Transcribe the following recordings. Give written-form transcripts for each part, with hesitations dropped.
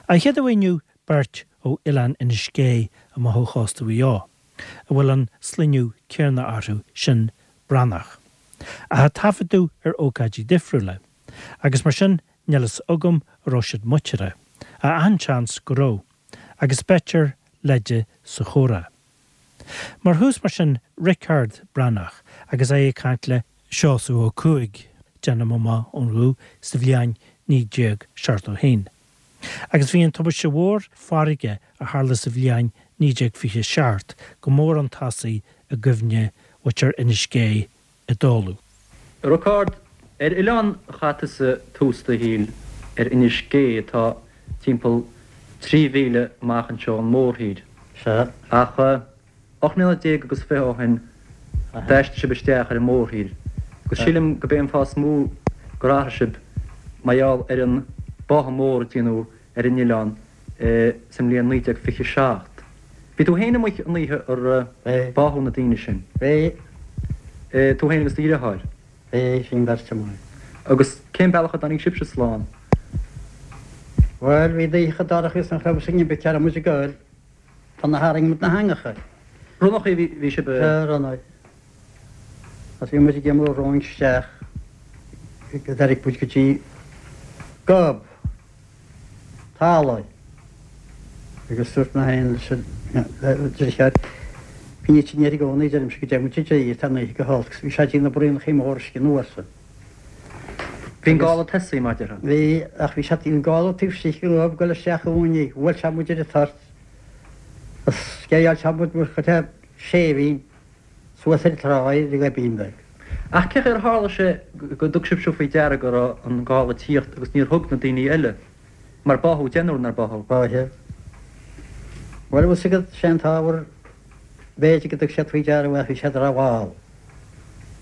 An chéad uair inniu beirt ó Oileán Inis Gé amach ó chósta Mhaigh Eo, a bhfuil an sloinneadh céanna orthu, sin Breathnach. Ach a taifeadadh ar ócáidí difriúla, agus mar sin níl fhios agam an raibh siad muinteartha, ach achan seans go raibh, agus b'fhéidir leide sa chomhrá. Mar thús mar sin Riocard Breathnach agus é ag caint le Seosamh Ó Cuaig, déanaim amach ón ghuth, sa bhliain 1971. Agus bhí an tubaiste mhór farraige a tharla sa bhliain 1927 go mór chun tosaigh i gcuimhne mhuintir Inis Gé i dtólamh. A Riocard, ar oileán a chaith tusa tús do shaoil ar Inis Gé atá timpeall 3 mhíle amach anseo ón mórthír. Sea. Ach 18 mbliana agus 20 ó shin d'aistrigh sibh isteach ar an mórthír agus sílim go b'é an fáth is mó gur athraigh sibh mar gheall ar an báthadh mór a déanadh ar an oileán sa mbliain 1927. Bhí tú féin amuigh an oíche ar báthadh na daoine sin. Bhí. Tú féin agus do dheartháir. Bhí, bhí an bheirt amuigh. Agus cén bealach a dtáinig sibhse slán? Bhuel, bhí an oíche dorcha agus nach raibh fhios againn cá raibh muid ag goil. Tá na tharraing muid na heangacha. Ronnachaí a bhí sibh a. Sea, ronnaigh. Agus bhí muid ag imeall romhainn isteach go dtáinig muid go dtí gob talaimh agus dúirt mé féin leis an deartháir, Bíonn sin air i gcónaí, deirimse, go dtéann muid i dtír, tá an oíche go holc. Bhí sé ag déanamh braonachaí mór uisce anuas. Bhí an gála tosaithe, mar a déarfá. Bhí, ach bhí sé, bhí an gála taobh istigh den ghob ag dul isteach chugainn í. Bhuail sé muid ar an toirt. Is sceideáil sé muid mar chuid de séimhín suas ar an tráigh ar an ghoibín beag. Ach cén chaoi ar tharla sé go dtug sibhse faoi deara go raibh an gála ag tíocht agus níor thug na daoine eile? Mar báthadh deichniúr, nár báthadh? Báthadh. Bhuel, bhfuil 'fhios agat, sé an t-ábhar, b'fhéidir go dtug siad faoi deara ach bhí siad rómhall.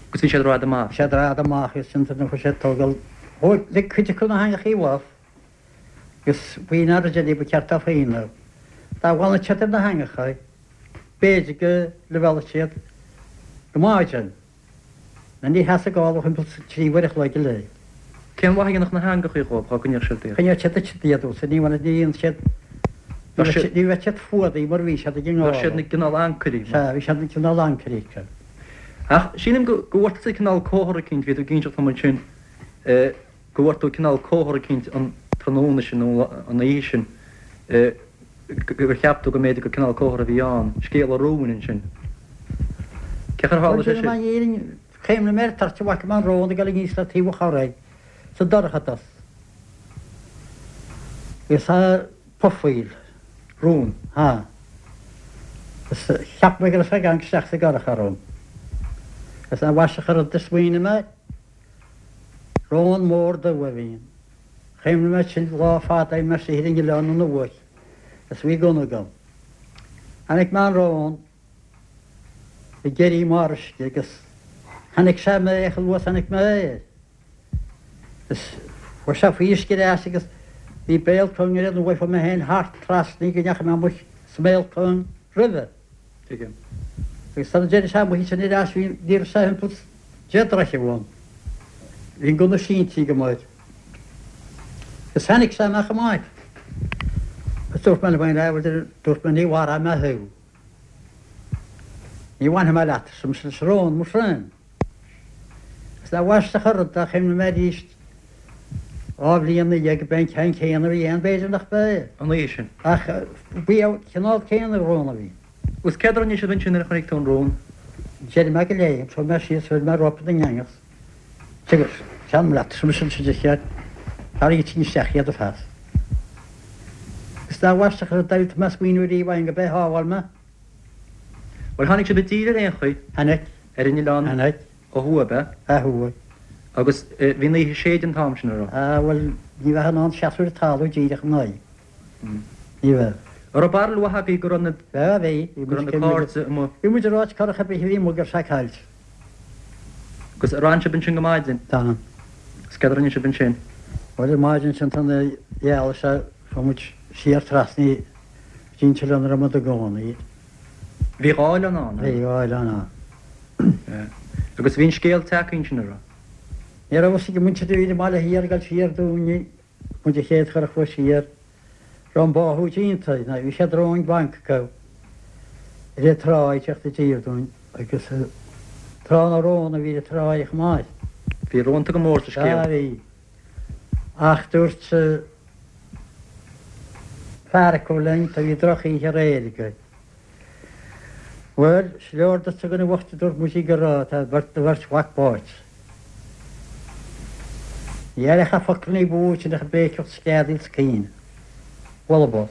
Agus bhí siad rófhada amach. Bhí siad rófhada amach agus sin nuair a chuaigh siad tógáil, thóg, lig cuid acu na heangachaí uathu agus faoin aird eile ba cheart dóibh féin é. Dá bhfanfadh siad ar na heangacha, b'fhéidir go luibheálfadh siad go maidin. Nó ní sheasfadh gála thimpeall 3 uair a chloig go leith. Cén mhaith a dhéanfadh na heangachaí dhóibh dhá gcoinneodh siad iad? Choinneodh siad duit iad usa, ní bhaineadh, ní dhéanfadh siad, ní bheadh siad, ní bheadh siad fuadaithe mar bhí siad ag an ngála. Bheadh siad ina gcineál ancairí. Sea, bhí siad ina gcineál ancairí acu. Ach sílim go, go bhfuair tusa cineál comhartha eicínt, bhí tú ag inseacht dom ansin, go bhfuair tú cineál comhartha eicínt an tráthnóna sin nó an oíche sin, gur cheap tú go mb'fhéidir gur cineál comhartha a bhí ann, scéal an róin ansin. Cén chaoi ar tharla sé sin? Bhuel, déarfainn an fhírinne, chuimhnigh mé ar toirt a bhfaca mé an rón ag dul aníos le taobh an chorraigh sa dorchadas agus ag pufaíl. Rón? Ha. Is cheap mé go raibh sé ag amharc isteach sa gcurach orm. Is amaisteach an rud a smaoinigh mé, rón mór dubh a bhí ann. Chuimhnigh mé sin lá fada ó shin istigh ar an oileán an uair is bhí gunna agam. Chonaic mé an rón ag éirí i mbarr uisce agus chonaic sé mé chomh luath is a chonaic mé é. Is chuaigh sé faoi uisce ar ais agus bhí béal cúng air nó bhfaighfeadh mé féin thart trasna go ndeachaigh mé amuigh sa mbéal cúng roimhe. Tuigim. Agus sula dtéann sé amuigh ansin ar ais bhí ní raibh sé thimpeall 10 dtroithe uaim. Bhí an gunna sínte agam air. Agus tháinig sé amach amach. Agus dúirt mé liom féin, ah, bhuel, dúirt mé, ní mharóidh mé thú. Ní bhainfidh mé leat, arsa mise leis an rón, mo thréan. Is amaisteach an rud é, chuimhnigh mé arís 2 bhliain ina dhiaidh go b'é an ceann céanna a bhí ann, b'fhéidir nach b'é. An oíche sin. Ach b'é an cineál céanna rón a bhí. Agus céard a rinne sibh ansin nuair a chonaic tú an rón? D'éirigh mé de léim, chuaigh mé síos, chuir mé ropa den eangach. Agus téanam leat, arsa mise leis an deartháir, tarraing isteach iad ar fad. Is amaisteach an rud é, tá mé ag smaoineamh ariamh ann go b'é a shábháil mé. Bhuel, tháinig sibh i dtír ar aon chaoi. Tháinig. Ar an oileán. Tháinig. Ó thuaidh, ab ea? Ó thuaidh. Agus bhí an oíche séidte an t-am sin, an raibh? Ah, bhuel, ní bheifeá in ann seasamh ar an talamh díreach in aghaidh. Ní bheadh. An raibh barúil mhaith agaibh go raibh na. Bheadh, bhí. Go raibh na cairde amuigh. Bhí muid ag ráit curach ar bith a bhí amuigh go raibh sé caillte. Agus ar fhan sibh ansin go maidin? D'fhan. Agus céard a rinne sibh ansin? Bhuel, ar maidin ansin tá na ghealaigh sé, chuaigh muid siar trasna go dtí an t-oileán a raibh muid i gcónaí. Bhí dhá oileán ann, an raibh? Bhí dhá oileán ann. Agus bhí an scéal tagtha ansin, an raibh? Ní raibh fhios ag an muintir a bhí ar an mbaile thiar ag dul siar dúinne, muid an chéad churach a chuaigh siar. Raibh an báthadh déanta, nó bhí siad romhainn banc acu ar an trá ag teacht i dtír dúinn agus trá na rón a bhí ar an tráigh chomh maith. Bhí rónta go mór sa scéal. Sea, bhí. Ach dúirt fear acu linn, tá bhí drochoíche aréir agaibh. Bhuel, is leor duitse a dhuine bhoicht a dúirt muid go raibh, tá do bheirt mhac báite. Ní aireofá focal ní ba mhó sin ach ag béiceacht sceadaíl 's caoineadh. Bhuel, ab.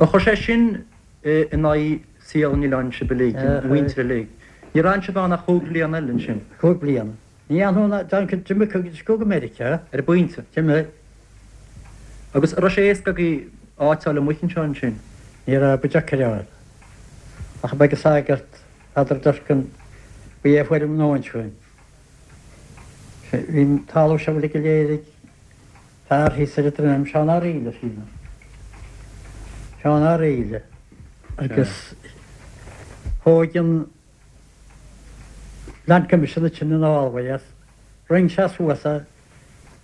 Ar chuir sé sin in aghaidh saol an oileáin sibh uilig, an mhuintir uilig? Níor fhan sibh ann ach chúig bliana eile ansin? Chúig bliana. Ní fhanfaidh ná Duncan, d'imigh go go Meiriceá. Ar an bpointe. D'imigh. Agus an raibh sé éasca agaibh áit a fháil amuigh anseo ansin? Ní raibh, ba deacair a fháil. Ach ab ag an sagart, Peadar Durkan, ba é a fuair an nóin chugainn. Bhí an talamh seo uilig go léir ag fear thíos ar an droim, Seán Ó Raoille, sílim. Seán Ó Raoille. Agus thóg an Land Commission ansin an fhálmhaidh as. Roinn sé suas é,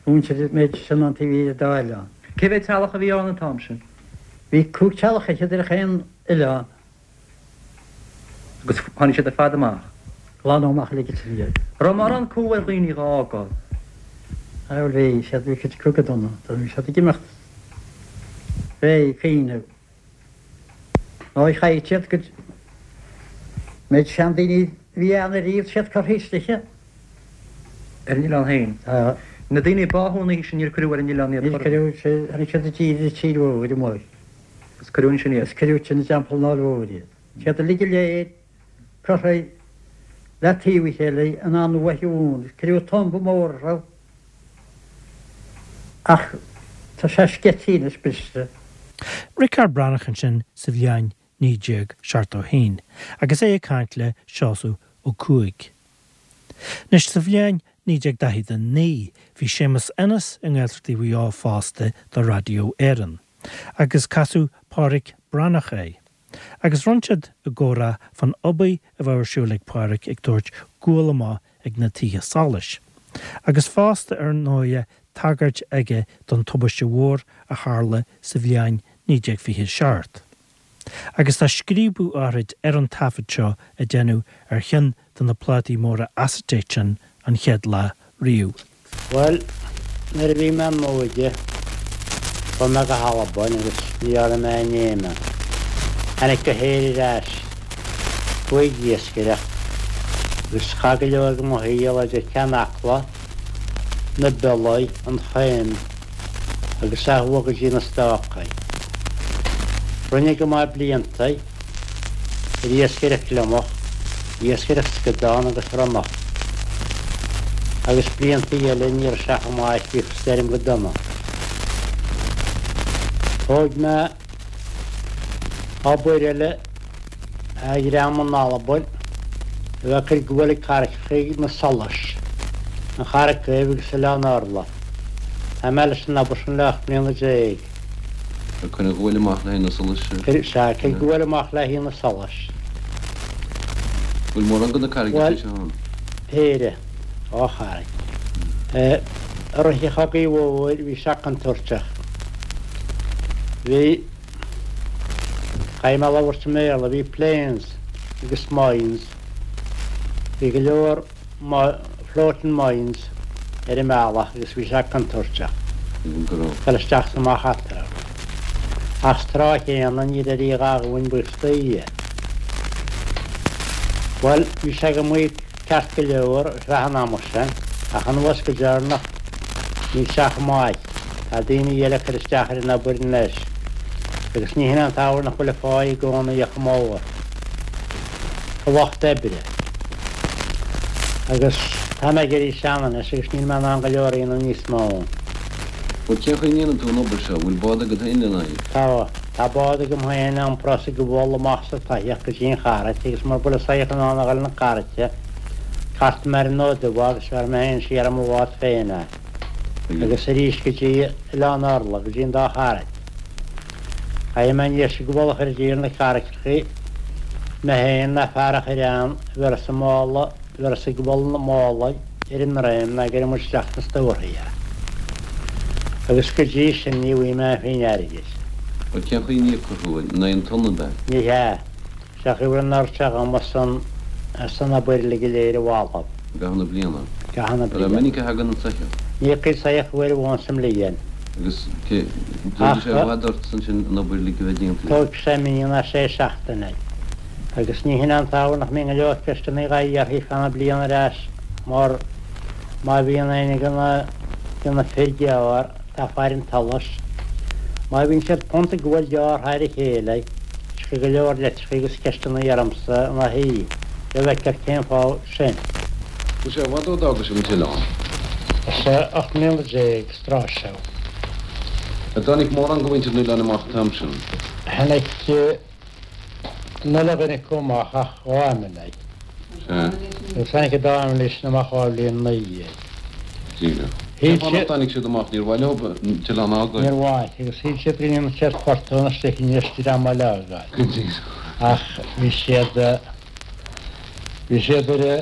mhuintir an méid sin an taobh thiar dá oileán. Cé mhéad teaghlach a bhí ann an t-am sin? Bhí 15 teaghlach ar chaon oileán. Agus tháinig siad ar fad amach. Glanadh amach uilig ansin iad. Raibh mórán cumha ar dhaoine dhá fhágáil? Bhuel bhí siad, bhí cuid acu go dona, bhí siad ag imeacht fé chaoineadh. Nó chaith siad go méid seandaoine a bhí ann ariamh, siad curtha istigh. Ar an oileán féin. Tá. Na daoine a báthadh an oíche sin níor cuireadh ar an oileán iad. Níor cuireadh, tháinig siad i dtír i dtír mhór amuigh. Agus cuireadh ansin iad. Agus cuireadh ansin i dTeampall an Fháil Mhóir iad. Siad uilig go léir curtha le taobh a chéile in an uaigh bhuan. Cuireadh tumba mór orthu. Ach tá sé sceití anois, briste. Riocard Breathnach ansin sa bhliain 1971 agus é ag caint le Seosamh Ó Cuaig. Anois sa bhliain 1949 bhí Séamus Ennis i nGaeltachtaí Mhaigh Eo fosta do Raidió Éireann agus casadh Pádhraic Breathnach é. Agus rinne siad a gcomhrá fán obair a bheadh ar siúl ag Pádhraic ag tabhairt gual amach ag na tithe solais. Agus fosta ar ndóighe tagairt aige don tubaiste mhór a tharla sa bhliain 1927. Agus tá scríobadh áithrid ar an taifead seo a deineadh ar cheann de na plátaí móra acetate sin an chéad lá riamh. Bhuel, nuair a bhí mé i m'óige, chuaigh mé go hAlbain agus ní dhearna mé aon fheidhm ann. Tháinig go hÉirinn ar ais, chuaigh ag iascaireacht agus chaith go leor de mo shaol idir Ceann Acla, na Biollaí, an Choim agus ó thuaidh go dtí na Stácaí. Rinne go maith blianta. Ar iascaireacht gliomach, iascaireacht scadán agus ronnach. Agus blianta eile ní raibh sé chomh maith bhíodh stoirm go dona. Thóg mé obair eile a dhream in Albain a bheith ag cur gual ag carraigeacha na Solais, an Charraig Dhuibh agus Oileán Orla. Tá mé leis an obair sin le 18 mbliana. Ag cur an ghuail amach le haghaidh na solais. Sea, ag cur guail amach le haghaidh na solais. Bhfuil mórán de na carraigeacha seo ann? Bhuel, péire, dhá charraig. I rith an Chogaidh Mhóir bhí sé contúirteach. Bhí, caithfidh mé labhairt i mBéarla, bhí planes agus mines, bhí go leor, floating mines ar an mbealach agus bhí sé contúirteach dul isteach is amach eatarthu. Ach sa tráth chéanna ní raibh a dhath againn buíochas do Dhia. Bhuel, bhí sé go maith ceart go leor ar feadh an ama sin ach anuas go deireanach níl sé chomh maith. Tá daoine eile ag cur isteach ar an obair anois agus ní hin é an t-ábhar nach bhfuil an pháigh i gcónaí chomh mór. do lucht oibre. Agus tá mé ag éirí sean anois agus níl mé in ann go leor a dhéanamh níos mó. Bhuel, cén chaoi a ndéanann tú an obair seo? Bhfuil bád agat féin lena aghaidh? Tá. Tá bád agam féin a iomprós an gual amach sa tsoitheach go dtí an charraic agus mura bhfuil an soitheach in ann a dhul 'na carraice, cartfaidh mé ar an Fhód Dubh é agus bhéarfaidh mé féin siar i mo bhád féin é. Agus arís go dtí Oileán Orla, go dtí an dá charraic. Caithfidh mé anois an gual a chur i dtír na carraigeacha, mé féin ná fear a chur ann a bhéarfas an mála, a bhéarfas an gual na mála ar an ndroim ná go gcuirfidh muid isteach sna stórthaí é. Agus go dtí sin ní bhfaighidh mé aon phingin airgid. Bhuel, cén chaoi a n-íocfar thú? In aghaidh an tonna ab ea? Ní hea. Sé an chaoi a raibh an oiread seo dhom as an, as an obair uilig go léir a bhailiú. I gcaitheamh na bliana? I gcaitheamh na An bliana. minic a thagann an soitheach? Ní thiocfaidh soitheach uair amháin sa mbliain. Agus cé, tógfaidh sé i bhfad ort ansin an obair uilig a bheith déanta? Tógfaidh sé mí nó sé seachtaine. Agus ní hin an t-ábhar nach mbíonn go leor ceisteanna dhá iarraidh feadh na bliana ar ais mar má bhíonn éinne de na, de na fir gearr, tá faire an tsolais, má bhíonn siad punt ag gabháil gearr thar a chéile, Tiocfaidh go leor litreacha agus ceisteanna ormsa ina thaobh, le bhfeictear cén fáth sin. Bhfuil sé i bhfad ó d'fhága sibh an t-oileán? Is 18 mbliana is tráth seo. An dtáinig mórán de mhuintir an oileáin amach an t-am sin? Tháinig an uile dhuine acu amach ach dhá fheimiléir. Sea. Agus tháinig an dá fheimiléir sin amach dhá bhliain ina dhiaidh. Díreach. Cén fáth nach dtáinig siad amach? Níor mhaith leo an t-oileán a fhágáil? Níor mhaith, agus shíl siad go ndéanfadh siad fortún istigh in Inis dream eile a fhágáil. Go díreach. Ach bhí siad, bhí siad ar a,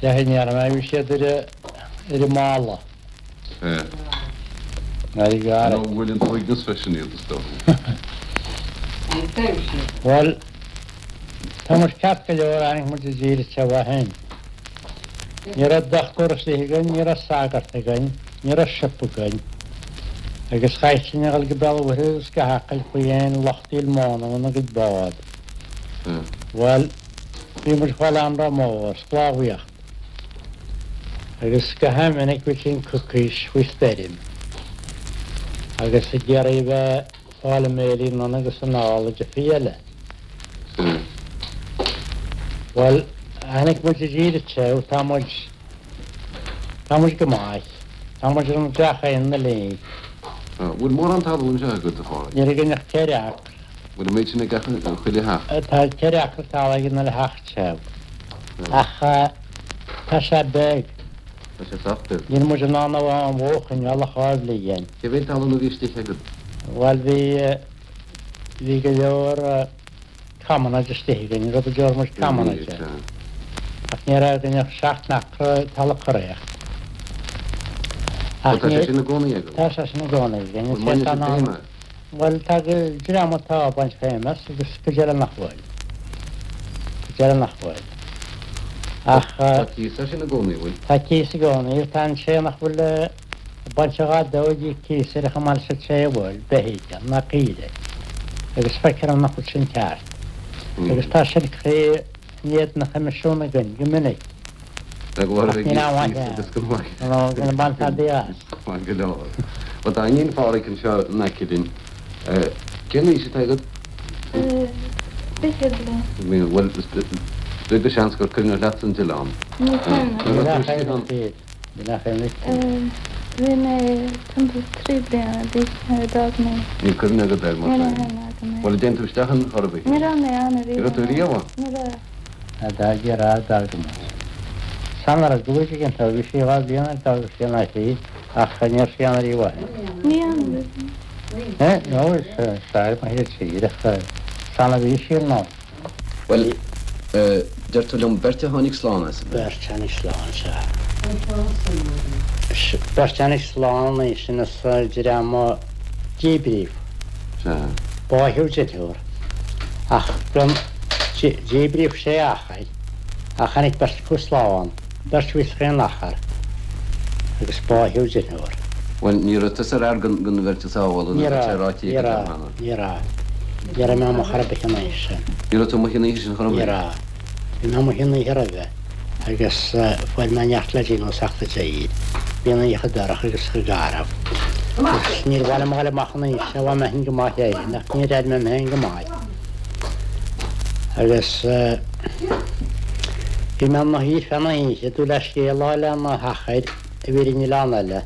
cé chaoi a ndéarfaidh mé, bhí siad ar a, ar an mballa. Sea. Ar an Nó bhuail an t-uaigneas freisin iad, is dócha. Bhuel, tá muid ceart go leor, tháinig muid i dtír anseo ó shin. Ní raibh dochtúir istigh againn, ní raibh sagart againn, ní raibh siopa againn, agus chaithfeadh sinn a dhul go Béal an Mhuirthead agus go hAcaill faoi aon lucht díol móna óna gcuid bád. Bhuel, bhí muid ag fáil anró mór, sclábhaíocht, agus go han-mhinic bhí sinn coicís faoi stoirm agus ag iarraidh a bheith ag fáil a mbéilí anonn agus anall i dtiofaí eile. Bhuel, tháinig muid i dtír anseo, tá muid, tá muid go maith. Tá muid ar an dreach céanna linn. Bhfuil mórán talún anseo agat, a Phádraig? Níl againn ach ceithre acra. Bhfuil an méid sin ag gach chuile theach? Tá ceithre acra talaimh ag an uile theach anseo. Ach tá sé beag. Tá sé sách beag. Níl muid in ann an bhó a choinneáil ach dhá bhliain. Cé mhéad talún a bhí istigh agat? Bhuel, bhí. Bhí go leor commonage istigh againn, rud a deir muid commonage air. Ach ní raibh againn ach seacht n-acra talamh curaíocht. Ach tá sé sin i gcónaí agaibh? Tá sé sin i gcónaí againn. Bhfuil mbaineann sibh feidhm as? Bhuel, tá dream atá ag baint feidhm as agus cuid eile nach bhfuil. Cuid eile nach bhfuil. Ach. Tá cíos air sin i gcónaí, bhfuil? Tá cíos i gcónaí. Tá an té nach bhfuil. Ag baint a dhath dó ag íoc cíos air chomh maith leis an té a bhfuil, beithígh ná caoirigh, agus feictear dom nach bhfuil sin ceart. Agus tá sin curtha in éadan an Choimisiúin againn go minic. Ach níl aon mhaith ann, nó go mbainfear tada as. Maith go leor. Bhuel, tá iníon Phádhraic anseo in aice linn. Cén aois atá agat? 20 bliain. Bhuel, beag de sheans gur cuimhneach leatsa an t-oileán. Ní cuimhin liom. Ní cuimhin leat. Bhí mé timpeall 3 bliana d'aois nuair a d'fhág mé. Níl cuimhne agat air, mar sin? Níl aon agam air. Bhuel, an dtéann tú isteach ann chor ar bith? Ní raibh mé ann ariamh. Ní raibh tú riamh ann? Ní raibh. A d'fhág ar a d'fhág muid. San raibh dúiche ag an tobh, bhí sí dhá bhliain ar d'fhág sí an áit í, ach ní raibh sí ann ariamh ó shin. Ní ann a bhí. Eh, no, is fearr mo thír tír, ach san a bhí sí ar ndóigh. Bhuel, deir tú liom, beirt a tháinig slán as, ab ea? Beirt a tháinig slán, sea. Beirt a tháinig slán ansin as dream a díbríodh. Sea. Báitheadh deirfiúr. Ach díbríodh sé achar, ach tháinig beirt acu slán, beirt a bhí chaon achar, agus báitheadh deirfiúr. Bhuel, ní raibh tusa ar fhear den bheirt a sábháladh, nó tá sé ráite agat cheana. Ní raibh, ní raibh. Ní raibh mé amuigh chor ar bith an oíche sin. Ní raibh tú amuigh an oíche sin chor ar bith? Ní raibh. Bhí mé amuigh an oíche roimhe agus fuair mé neart le déanamh as ucht an dé. Bhí an oíche dorcha agus chomh garbh. Agus níor mhaith liom a dhul amach an oíche sin, bhain mé féin go maith léi, ach níor airigh mé mé féin go maith. Agus bhí mé ina shuí ar feadh na hoíche, ag dúil le scéal a fháil ó na hachair a bhí ar an oileán eile.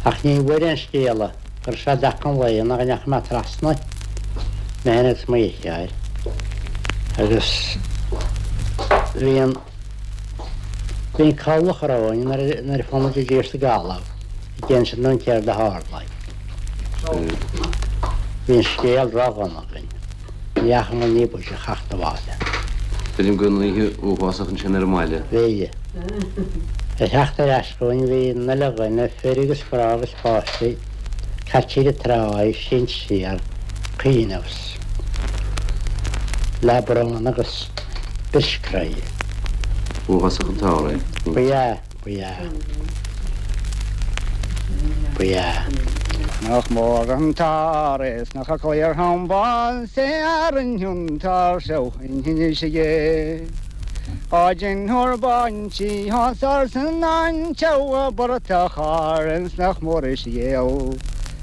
Ach ní bhfuair aon scéala go raibh sé i dtaca an lae ná go ndeachaigh mé trasna, mé féin agus mo dheartháir, agus bhí an, bhí an cabhlach romhainn nuair a fuair muid i dtír sa gcaladh ag insint dúinn céard a tharla. Bhí an scéal ródhona againn. Ní dheachaigh muid ní b'fhaide a theacht abhaile. Tuigim go raibh an oíche uafásach ansin ar an mbaile. Bhí. Ag theacht ar ais chugainn bhí an uile dhuine, fir agus mná agus páistí, caite ar an tráigh, sínte siar, caoineadh le brón agus bris croí. B'uafásach an t-ár é. Ba ea, ba ea. Ba ea. Nach mór an t-ár é 's nach cliar an bás é a rinne an t-ár seo in Inis Gé. Á deinthear baintí as arsan anteabh a bportach Árann 's nach mór is ghéill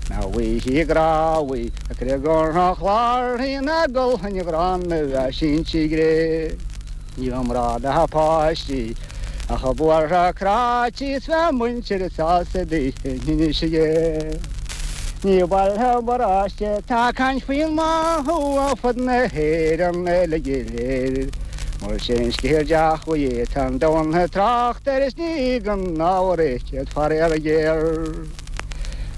na bhfuighí grábhaí a criogar an chláir na gculthain ghránna a síntí gré. Ní raibh mná ná páistí ach a buartha cráití 's bheadh muintir sásta daoithe in Inis Gé. Ní baile paróiste tá caint faoin mbáthadh ar fud na hÉireann uilig go léir. Mar sin scéal deachmhaí tá an domhan ag trácht air is ní gan ábhar é céad faraor géar.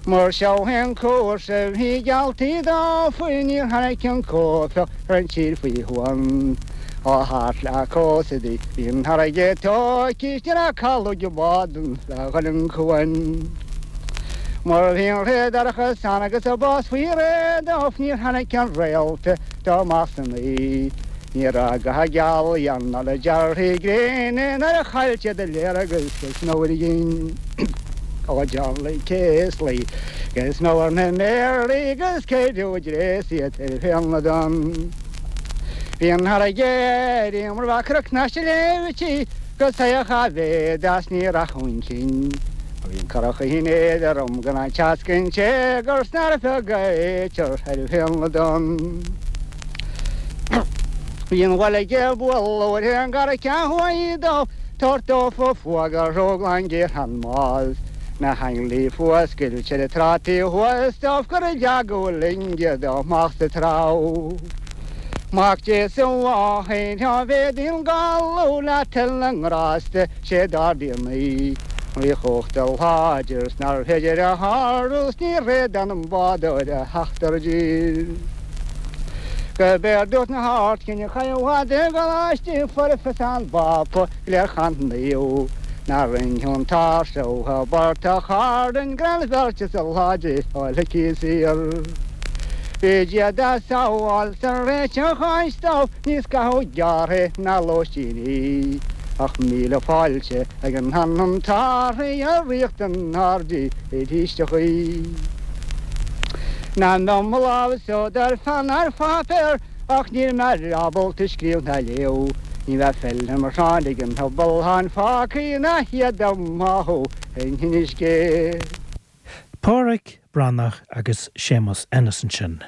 Mar seo é an cúrsa bhí gealltaí dófa níor tháinig an cuaifeach ar an tír faoi shuan. Ó thart le cósta di bhí an fharraige tóigthe is ní raibh caladh ag bád ann le dhul an cuan. Mar bhí an ré dorcha san agus an bás faoi réir dóibh níor tháinig an réalta dó amach san oíche. Ní raibh ga gealaí ann ná le dearthaí gréine nuair a chaill siad a léargas go snow ar a gcinn. Ó Charlie Casely go snow ar na méaraí agus céideadh dréas iad ar féin na dtonn. Bhí an fharraige ar mar bheadh cnoc na sléibhtí go saoch a mhéad as ní rachadh chun cinn. Bhí an curach in éadrom gan an teasc an téagar 's nárbh bheag a éitear ar féin na dtonn. Bhí an bhaile ag bualadh ar an gcarraig thuaidh dó, tabhairt dófa fuaga ró-ghlan géar an mbás. Na hainglí fuascailt ar an trá taobh thuas dóibh gur leagadh loinge dó amach sa treabh. Mac Dé sa mháthair á bhféadaíonn galú le toil na ngrásta sé d'ardaíonn í. Rí chumhachta láidir 's nárbh féidir a shárú 's ní réadán an bádóir a theacht ar dtír. Go b'éard dúirt na hArdchinn a chaith i bhfad i gColáiste Foirfe 's an bPápa léir chan naomh ná rinne an t-ár seo a bportach Árainn gan bheirt is a láidir fháil aici saor. Bhí Dia dá sábháil sa réiteach áit dóibh níos caitheamh gearrtha ná lóistíní ach míle fáilte ag an anam tarthaí a ríocht an aird arís a chaoi. Ná mbeadh mo lámh sodar fan ar pháipéar Ach níl mé ábalta scríobh ná léamh. Ní bheadh feilm mar Sheán ag an pobal tháin fágtha ina hiad dá mbáthadh in Inis Gé. Páraic Breathnach agus Séamus Ennis ansin.